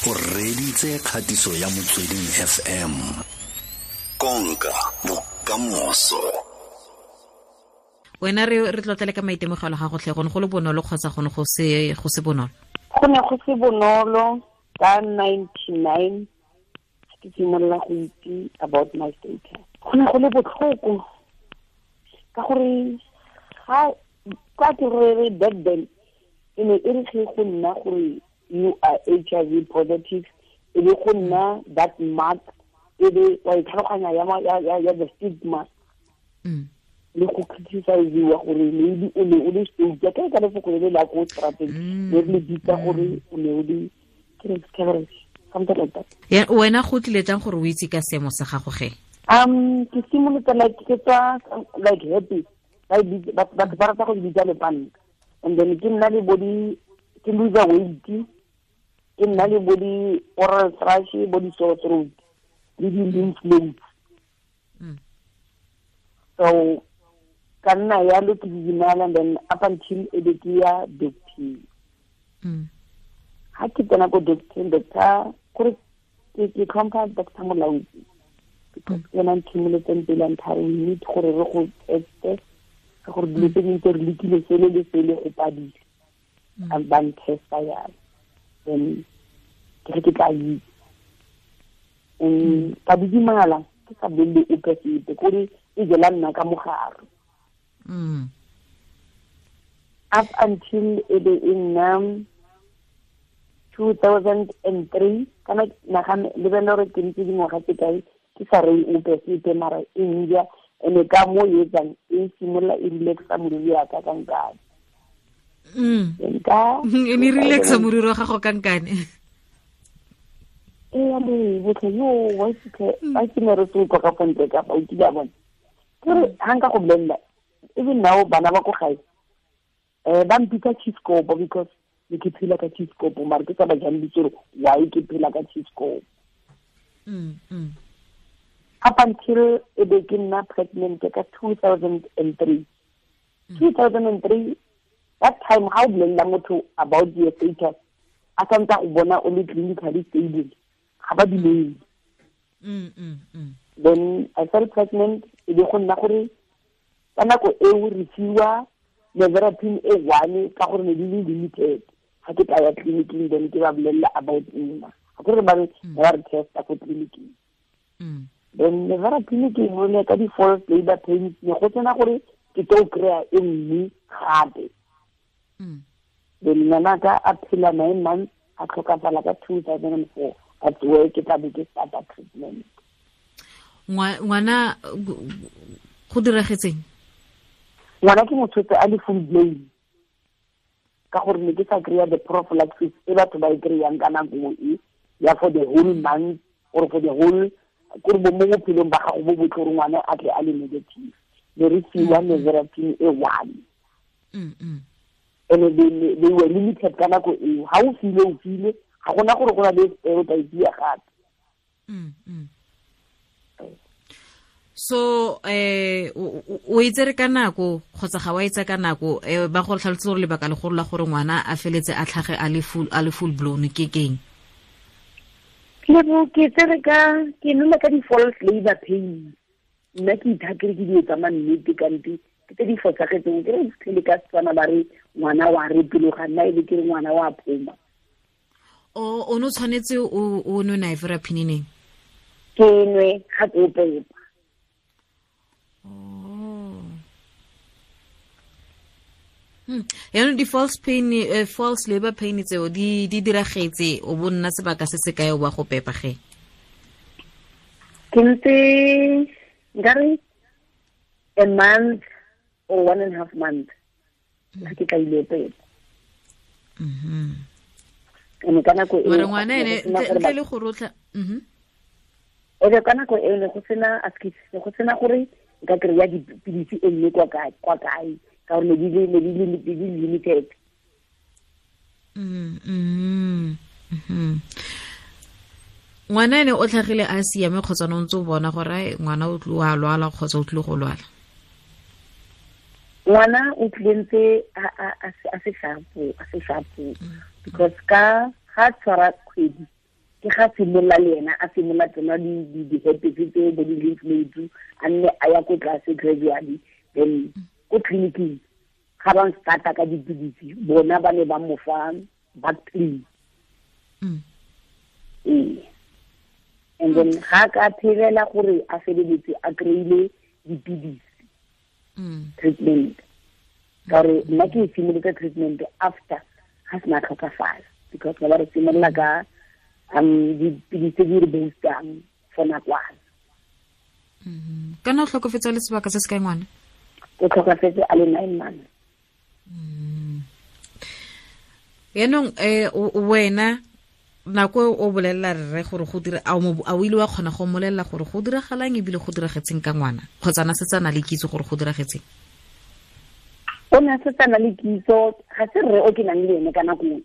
O reditse kgatiso ya Motsweding FM. Konka bokamoso. Wena re tlotlele ka maitemogelo ga gotlhe, go ne go le bonolo kgotsa go ne go se bonolo? Go ne go se bonolo. Ka 99 ke simolola go itse about my status. Go ne go le botlhoko ka gore ga ka ke re back then e ne e re ge go nna gore you are HIV positive, e be go nna that mark, e be wa itlhaloganya ya the stigma. Le go criticize-iwa gore maybe o ne o le stroke, ka ka lefoko le la ko strateng, le le bitsa gore o ne o le something like that. Ya wena go tlile jang gore o itse ka seemo sa gago ge? Ke simolotse like ke tswa like happy, batho ba rata go bitsa lepanta, and then ke nna le body, ke lose weight, ke nna le body oral thrush, body sore throat, le di lymph nodes. So ka nna yalo ke didimala, and then up until e be ke ya doctor. Ha ke tsena ko doctor, doctor kore ke tlhompha Doctor Molaodi, because ena nthimoletseng pele a nthare we need gore re go teste ka gore dilo tse dingwe tse re lekile sele le sele go padile, a ba ntesta yalo, then ke re ke tla itse. Ka didimala ke sa bolele ope sepe, kore e jela nna ka mogare. Up until e be e nna 2003, kana nagana lebella gore ke ntse dingwaga tse kae ke sa reye ope sepe, mara e nja ene ka mo e etsang e simolola e relaxa moriri wa ka ka nkane. E ne relaxa moriri wa gago ka nkane. Ee, le botlhe yo wa ke ne re se utlwa ka fontle ka fa o kile a bona. Ke re ha nka go bolelela, even now bana ba ko gae ba mpitsa cheescope because ne ke phela ka cheescope, mara ke sa ba jang ditse gore why ke phela ka cheescope. Up until e be ke nna pregnant ka 2003. 2003, that time ha o bolelela motho about your status, a santse go bona o le clinically stable, ga ba dumele. Then I fell pregnant, e be go nna gore ka nako eo re fiwa nevirapine e one ka gore ne di le limited. Ga ke tla ya tleliniking, then ke ba bolelela about nna, ga kore ba re testa ko tleliniking. Then nevirapine ke nole ka di-false labor pains, ne go tsena gore ke tlo kry-a e nngwe gape. Then ngwanaka a phela 9 months, a tlhokafala ka 2004. That's where ke tla be ke starta treatment. Ngwana go diragetseng? Ngwana ke motho a le full blown, ka gore ne ke sa kry-a the prophylaxis e batho ba e kry-ang ka nako e ya for the whole month or for the whole kore mo bophelong ba gago bo botlhe gore ngwana a tle a le negative. Ne re fiwa nevirapine e one. And they were limited ka nako eo. Ha o file o file, ga gona gore go na le o tla e gape. So o itsere ka nako kgotsa ga wa itse ka nako, ba go tlhalosetse gore lebaka legolo la gore ngwana a feletse a tlhage a le full blown ke keng? Lebo ke tsere ka ke nole ka di-false labor pains. Nna ke ithakere ke dilo tsa mannete kante ke tse di fosagetseng. Ke re fitlhele ka Setswana ba re ngwana wa repeloga, nna e be ke re ngwana wa phoma. O ne o tshwanetse o nwe nevirapine neng? Ke nwe ga ke o pepa. Yaanong di-false pain, false labor pain tseo di diragetse o bo nna sebaka se se kae o ba go pepa ge? Ke ntse nkare a month or 1.5 months ga ke tla ile pepa. Ene ka nako eo ngwana ene ntle le go rotla. Ebe ka nako eo ne go sena askis, ne go sena gore nka kry-a dipilisi e nngwe kwa kae ka gore ne di le limited. Ngwana ene o tlhagile a siame kgotsa no ntse o bona gore ngwana o tlile a lwala kgotsa o tlile go lwala? Ngwana o tlile ntse a se sharpo, because ka ga tshwara kgwedi Ke ga simolola le ena a simolola tsena di-herpes tseo bo di-lymph nodes, a nne a ya ko tlase gradually. Then ko tleliniking ga ba starta ka dipidisi, bona ba ne ba mo fa Bactrim. Ee, and then ga ka phelela gore a feleletse a kry-ile dipidisi, treatment, ka gore nna ke e simolotse treatment after ga sena tlhokafala, because ba re simolola ka dipidisi tse di re boostang for nakwana. Kana o tlhokofetse le sebaka se se kae ngwana? O tlhokafetse a le 9 months. Yaanong wena nako o bolelela rre gore go dira, a o ile wa kgona go mmolelela gore go diragalang ebile go diragetseng ka ngwana, kgotsa na setse a na le kitso gore go diragetseng? O ne a setse a na le kitso, ga se rre o ke nang le ene ka nako e.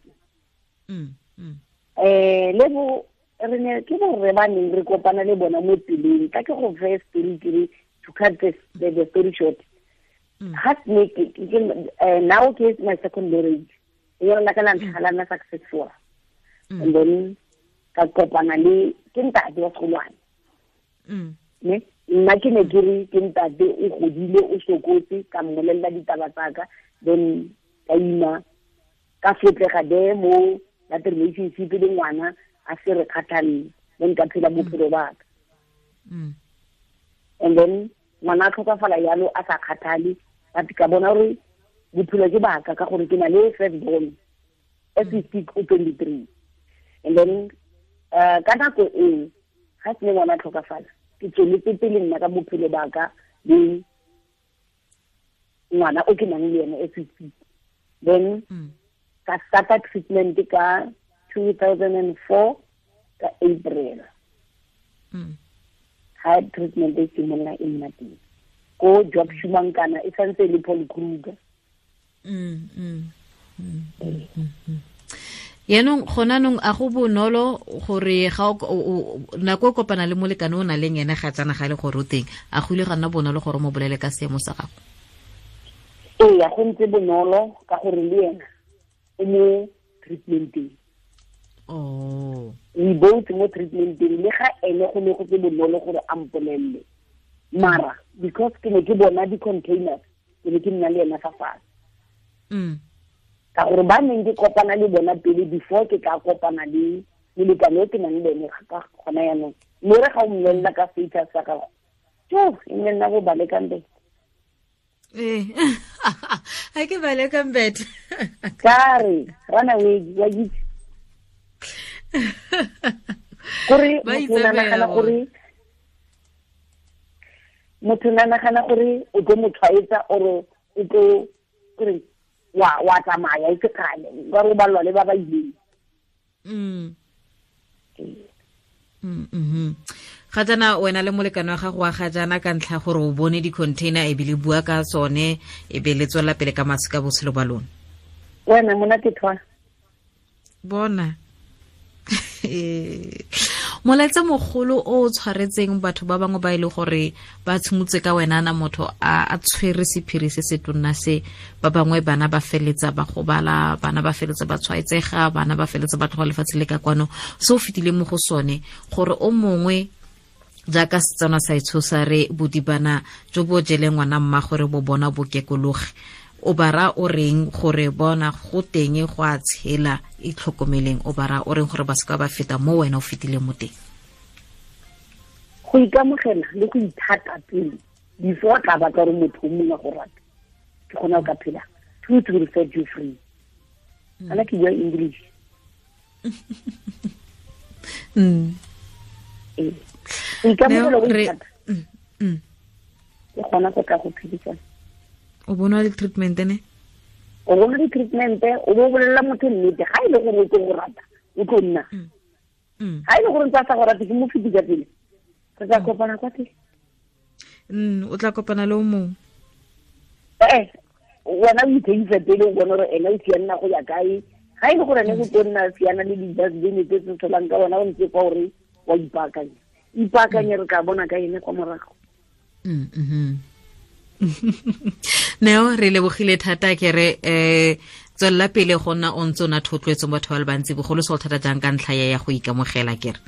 Le bo re ne ke borre ba neng re kopana le bona mo tseleng. Ka ke go fe story ke re, to cut the story short. Ga ne ke, now ke my second marriage. E yona la ka la ntlha la nna successful. And then ka kopana le ke ntate wa segolwane. Ne nna ke ne ke re ke ntate o godile o sokotse, ka mmolelela ditaba tsaka, then ka ima ka fetlega de mo that relationship le ngwana a se re kgathalle, then ka phela bophelo ba ka. And then ngwana a tlhokafala yalo a sa kgathale, but ka bona gore bophelo ke baka ka gore ke na le first born as we speak o 23. And then ka nako eo ga se ngwana a tlhokafala, ke tsweletse pele nna ka bophelo ba ka le ngwana o ke nang le ene as we speak. Then ka starta treatment ka 2004 ka April. Ha treatment e simolola e nna teng ko Job Shumankana, e santse e le Paul Kruger. Yaanong gona nong a go bonolo gore ga nako o kopana le molekane o na leng ene ga tsana ga le gore o teng, a go ile ga nna bonolo gore o mo bolele ka seemo sa gago? Ee, go ntse bonolo ka gore le ena o mo treatmenteng. Oh. We both mo treatmenteng, le ga ene go ne go se bonolo gore a mpolelle, mara because ke ne ke bona di-containers, ke ne ke nna le ena fa fatshe. Ka gore ba neng ke kopana le bona pele before ke ka kopana le molekane o ke nang le ene ka gona jaanong, mme re ga o mmolelela ka status sa gago, tjo, e nne nna bo balekang bete. Ee, ga ke balekang bete. Ka re, run away, wa itse. Gore motho o nagana gore motho o nagana gore o tlo mo tshwaetsa or o tlo gore wa tsamaya e se kgale, ka re o balwa le ba ba ileng. Ga jaana wena le molekane wa gago wa ga jaana ka ntlha gore o bone di-container e be le bua ka tsone, e be le tswela pele ka masika botshelo ba lona. Wena monate thwa. Bona. Molaetsa mogolo o tshwaretseng batho ba bangwe ba ile gore ba tshimotse ka wena na motho a tshwere sephiri se se tonna se, ba bangwe bana ba feletsa ba gobala, bana ba feletsa ba tshwaetsega, bana ba feletsa ba tloga lefatshe le ka kwano, se o fetile mo go sone gore o mongwe jaaka Setswana sa itshosa re bodibana jo bo jeleng ngwana mma gore bo bona bo kekologe, o bara o reng gore bona go teng go a tshela, itlhokomeleng, o bara o reng gore ba seka ba feta mo wena o fetileng mo teng? Go ikamogela le go ithata pele before tla batla gore motho o mongwe go rata, ke gona o ka phela. Truth will set you free. Ana ke bua English. Ee, go ikamogela go ithata ke gona go tla go phedisana. O bona di-treatment ne? O bona di-treatment, o bo bolelela motho nnete, ga e le gore o tlo go rata, o tlo nna. Ga e le gore ntse a sa go rate, ke mo fetisa pele. Re tla kopana kwa teng. O tla kopana le o mongwe. Wena o itheisa pele o bone gore ene o sianna go ya kae. Ga e le gore ene o tlo nna siana le di-dustbin tse tse tsholang ka wena, o ntse kwa gore wa ipaakanya. Ipaakanye, re tla bona ka ene kwa morago. Neo, re lebogile thata ke re Tswelela pele go nna o ntse o na thotloetso mo batho ba le bantsi, bogolo se go thata jang ka ntlha ya go ikamogela kere.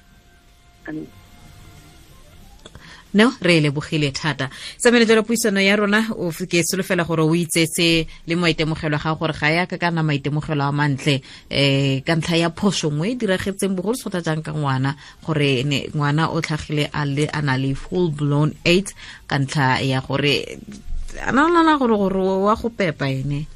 No, re lebogile thata. Tsamele jalo puisano ya rona, o ke solofela gore o itsetse le maitemogelo ga gore ga ya ka kana maitemogelo a mantle ka ntlha ya phoso nngwe e diragetseng bogolo se thata jang ka ngwana, gore ne ngwana o tlhagile a le a na le full blown AIDS ka ntlha ya gore a nana gore wa go pepa ene.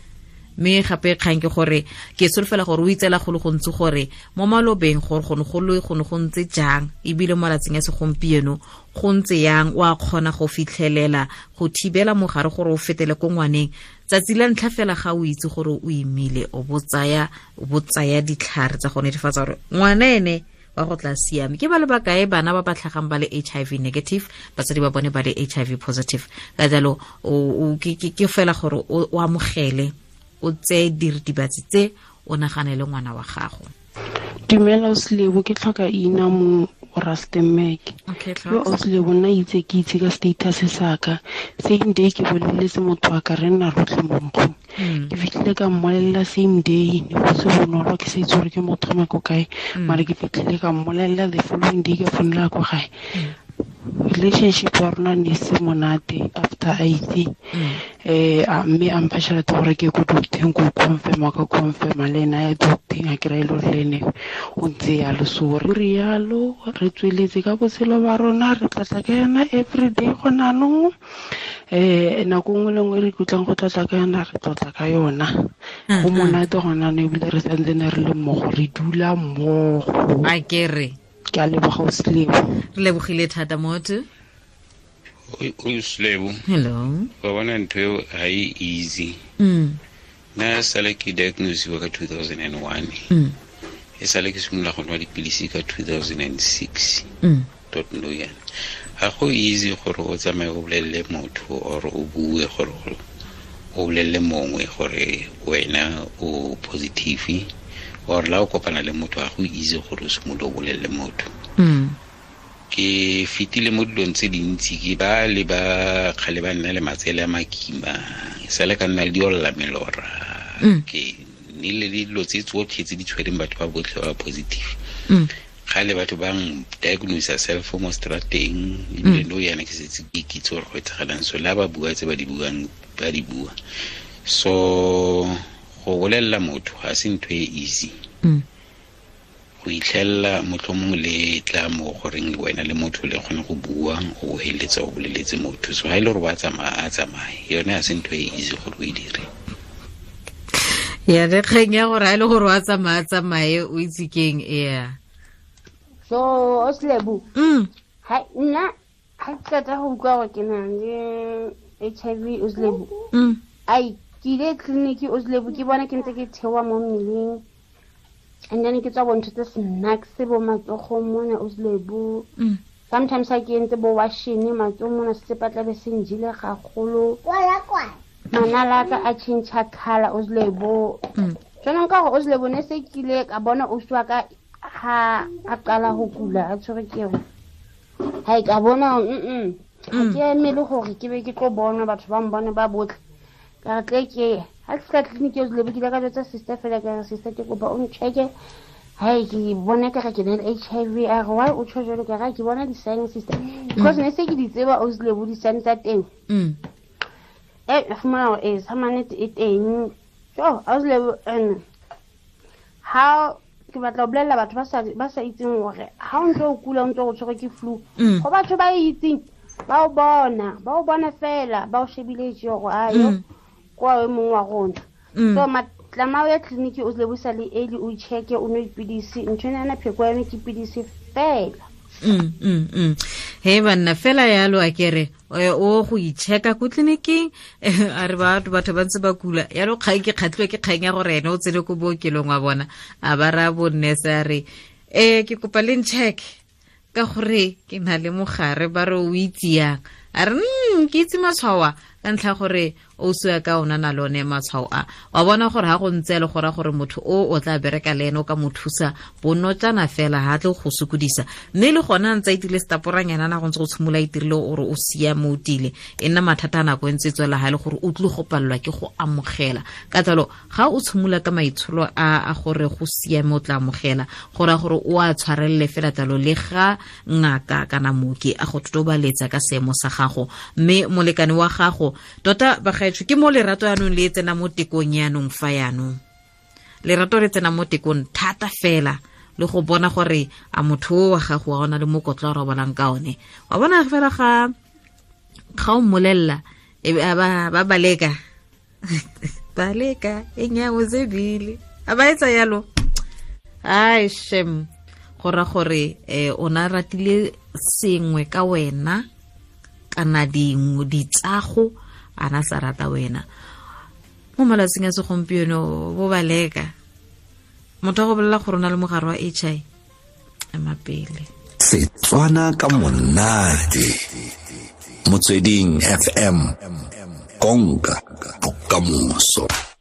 Mme gape kgang ke gore ke solofela gore o itsela go le gontsi gore mo malobeng gore go ne go le go ne go ntse jang, ebile mo malatsing a segompieno go ntse yang, wa kgona go fitlhelela go thibela mogare gore o fetele ko ngwaneng. Tsatsi la ntlha fela ga o itse gore o imile, o bo tsaya ditlhare tsa go netefatsa gore ngwana ene wa go tla siame. Ke ba le bakae bana ba ba tlhagang ba le HIV negative, batsadi ba bone ba le HIV positive. Ka jalo ke fela gore o amogele, o tseye diritibatsi tse, o nagane le ngwana wa gago. Dumela Oslebo, ke tlhoka ina mo Rustenburg. Yo Oslebo, nna itse ke itse ka status sa ka. Same day ke boleletse motho wa ka, re nna rotlhe mo nkgong. Ke fitlhile ka mmolelela same day, ne go se bonolo, ke sa itse gore ke motho wa ko kae, mara ke fitlhile ka mmolelela the following day ka founela ko gae. Relationship ya rona ne se monate after a itse. Mme a mpha tšhelete gore ke ko docteng, ko confirma, ka confirma le ena ya docteng, a kry-a e le gore le ene o ntse yalo. So re rialo, re tsweletse ka botshelo ba rona, re tlatla ka yona everyday gone anong. Nako nngwe le nngwe re ikutlwang go tlotla ka yona, re tlotla ka yona. Go monate gone anong, ebile re santsene re le mmogo, re dula mmogo. A ke re ke a leboga Oslebo. Re lebogile thata motho. Oslebo. Hello. Wa bona ntho eo ha e easy. Nna sale ke diagnosiwa ka 2001. E sale ke simolola go nwa dipilisi ka 2006. Tot no yana. Ga go easy gore o tsamaye o bolelele motho or o bue gore o bolelele mongwe gore wena o positive, or la o kopana le motho, ga go easy gore o simolole o bolelele motho. Ke fetile mo dilong tse dintsi, ke ba le ba kgale ba nna le matsele a makima, sale ka nna le diolla melora. Ke nnile le dilo tse tsotlhe tse di tshwereng batho ba botlhe ba positive. Kgale batho ba diagnose self mo strateng, ebile no yana ke setse ke kitse gore go etsagalang. So la ba bua tse ba di buang, ba di bua. So go bolelela motho ga se ntho e easy. Go itlhella motlhomong le tla mo goreng wena le motho le kgone go bua, o heletsa o boleletse motho. So ha ile gore ba tsamaya, a tsamaye. Yone ha se ntho e easy gore o e dire. Ya le kgeng ya gore ha ile gore wa tsamaya, tsamaye, o itse keng ea. So Oslebo, ha nna ha ke qeta go utlwa gore ke na le HIV Oslebo. Ai, ke ile tleliniki Oslebo, ke bona ke ntse ke theoha mo mmeleng. And then ke tswa bontho tse snacks bo matsogong mona Oslebo. Sometimes ha ke entse bo washing matsogo mona sesepa tlabe se njile gagolo. Manala ka a change color Oslebo. Jwanong ka gore Oslebo ne se kile ka bona o swa ka ha a qala ho kula a tshwere ke eo. Ha e ka bona ha ke emele gore ke be ke tlo bona batho ba mbone ba botlhe. Ka re tle ke ha ke fihla tleliniki Oslebo, ke ile ka jwetsa sister fela, ka re sister ke kopa o ncheke. Hai, ke bona ka re ke na le HIV. A re why o tjho jwalo? Ka re ke bona di-sign sister, because ne se ke di tseba Oslebo di-sign tsa teng. Fumana hore sa mannete e teng. Jo Oslebo, and ha ke batla ho bolella batho ba sa itseng hore ha o ntse o kula, o ntse o tshwerwe ke flu, go batho ba itseng ba o bona fela, ba o shebile tje hore ayo kwa e mongwe wa rona. So matlama o ya tleliniki o tle busa le early, o checke, o nwe dipidisi. Ntho ena yana pheko ya yone ke pidisi fela. He banna fela yalo a kere o go ichecka ko tleliniking, a re batho ba ntse ba kula yalo. Kgang ke kgatlhiwe ke kgang ya gore ene o tsene ko bookelong wa bona, a ba raya bo nurse a re ke kopa le ncheck ka gore ke na le mogare. Ba re o itse yang? A re ke itse matshwao ka ntlha gore O se ka ona na lone matshwao a wa bona gore ha go ntse le gore gore motho o tla bereka le ene o ka mo thusa bonotsana fela ha tle go sokodisa mme le gona ntse itile staporanyana na go ntse go tshimola itirile gore o siame o tile e nna mathata a nako e ntse tswela ha le gore o tlile go palelwa ke go amogela ka jalo ga o tshimola ka maitsholo a gore go siame o tla amogela gore gore o a tshwarelele fela jalo le ga ngaka kana mooki a go totobaletsa ka seemo sa gago mme molekane wa gago tota bagaetsho ke mo lerato yanong le tsena mo tekong yanong fa yanong lerato le tsena mo tekong thata fela le go bona gore a motho wa gago wa ona le mokotlo a robalang ka one wa bona fela ga o mmolelela e ba baleka baleka enyawo zebile a ba etsa yalo ai shem go ra gore o na ratile sengwe ka wena kana dingwe ditsago ana sa rata wena mo malatsing a segompieno bo baleka motho a go bolela gore o na le mogare wa HIV ema pele. Setswana ka monate Motsweding FM konka bokamoso.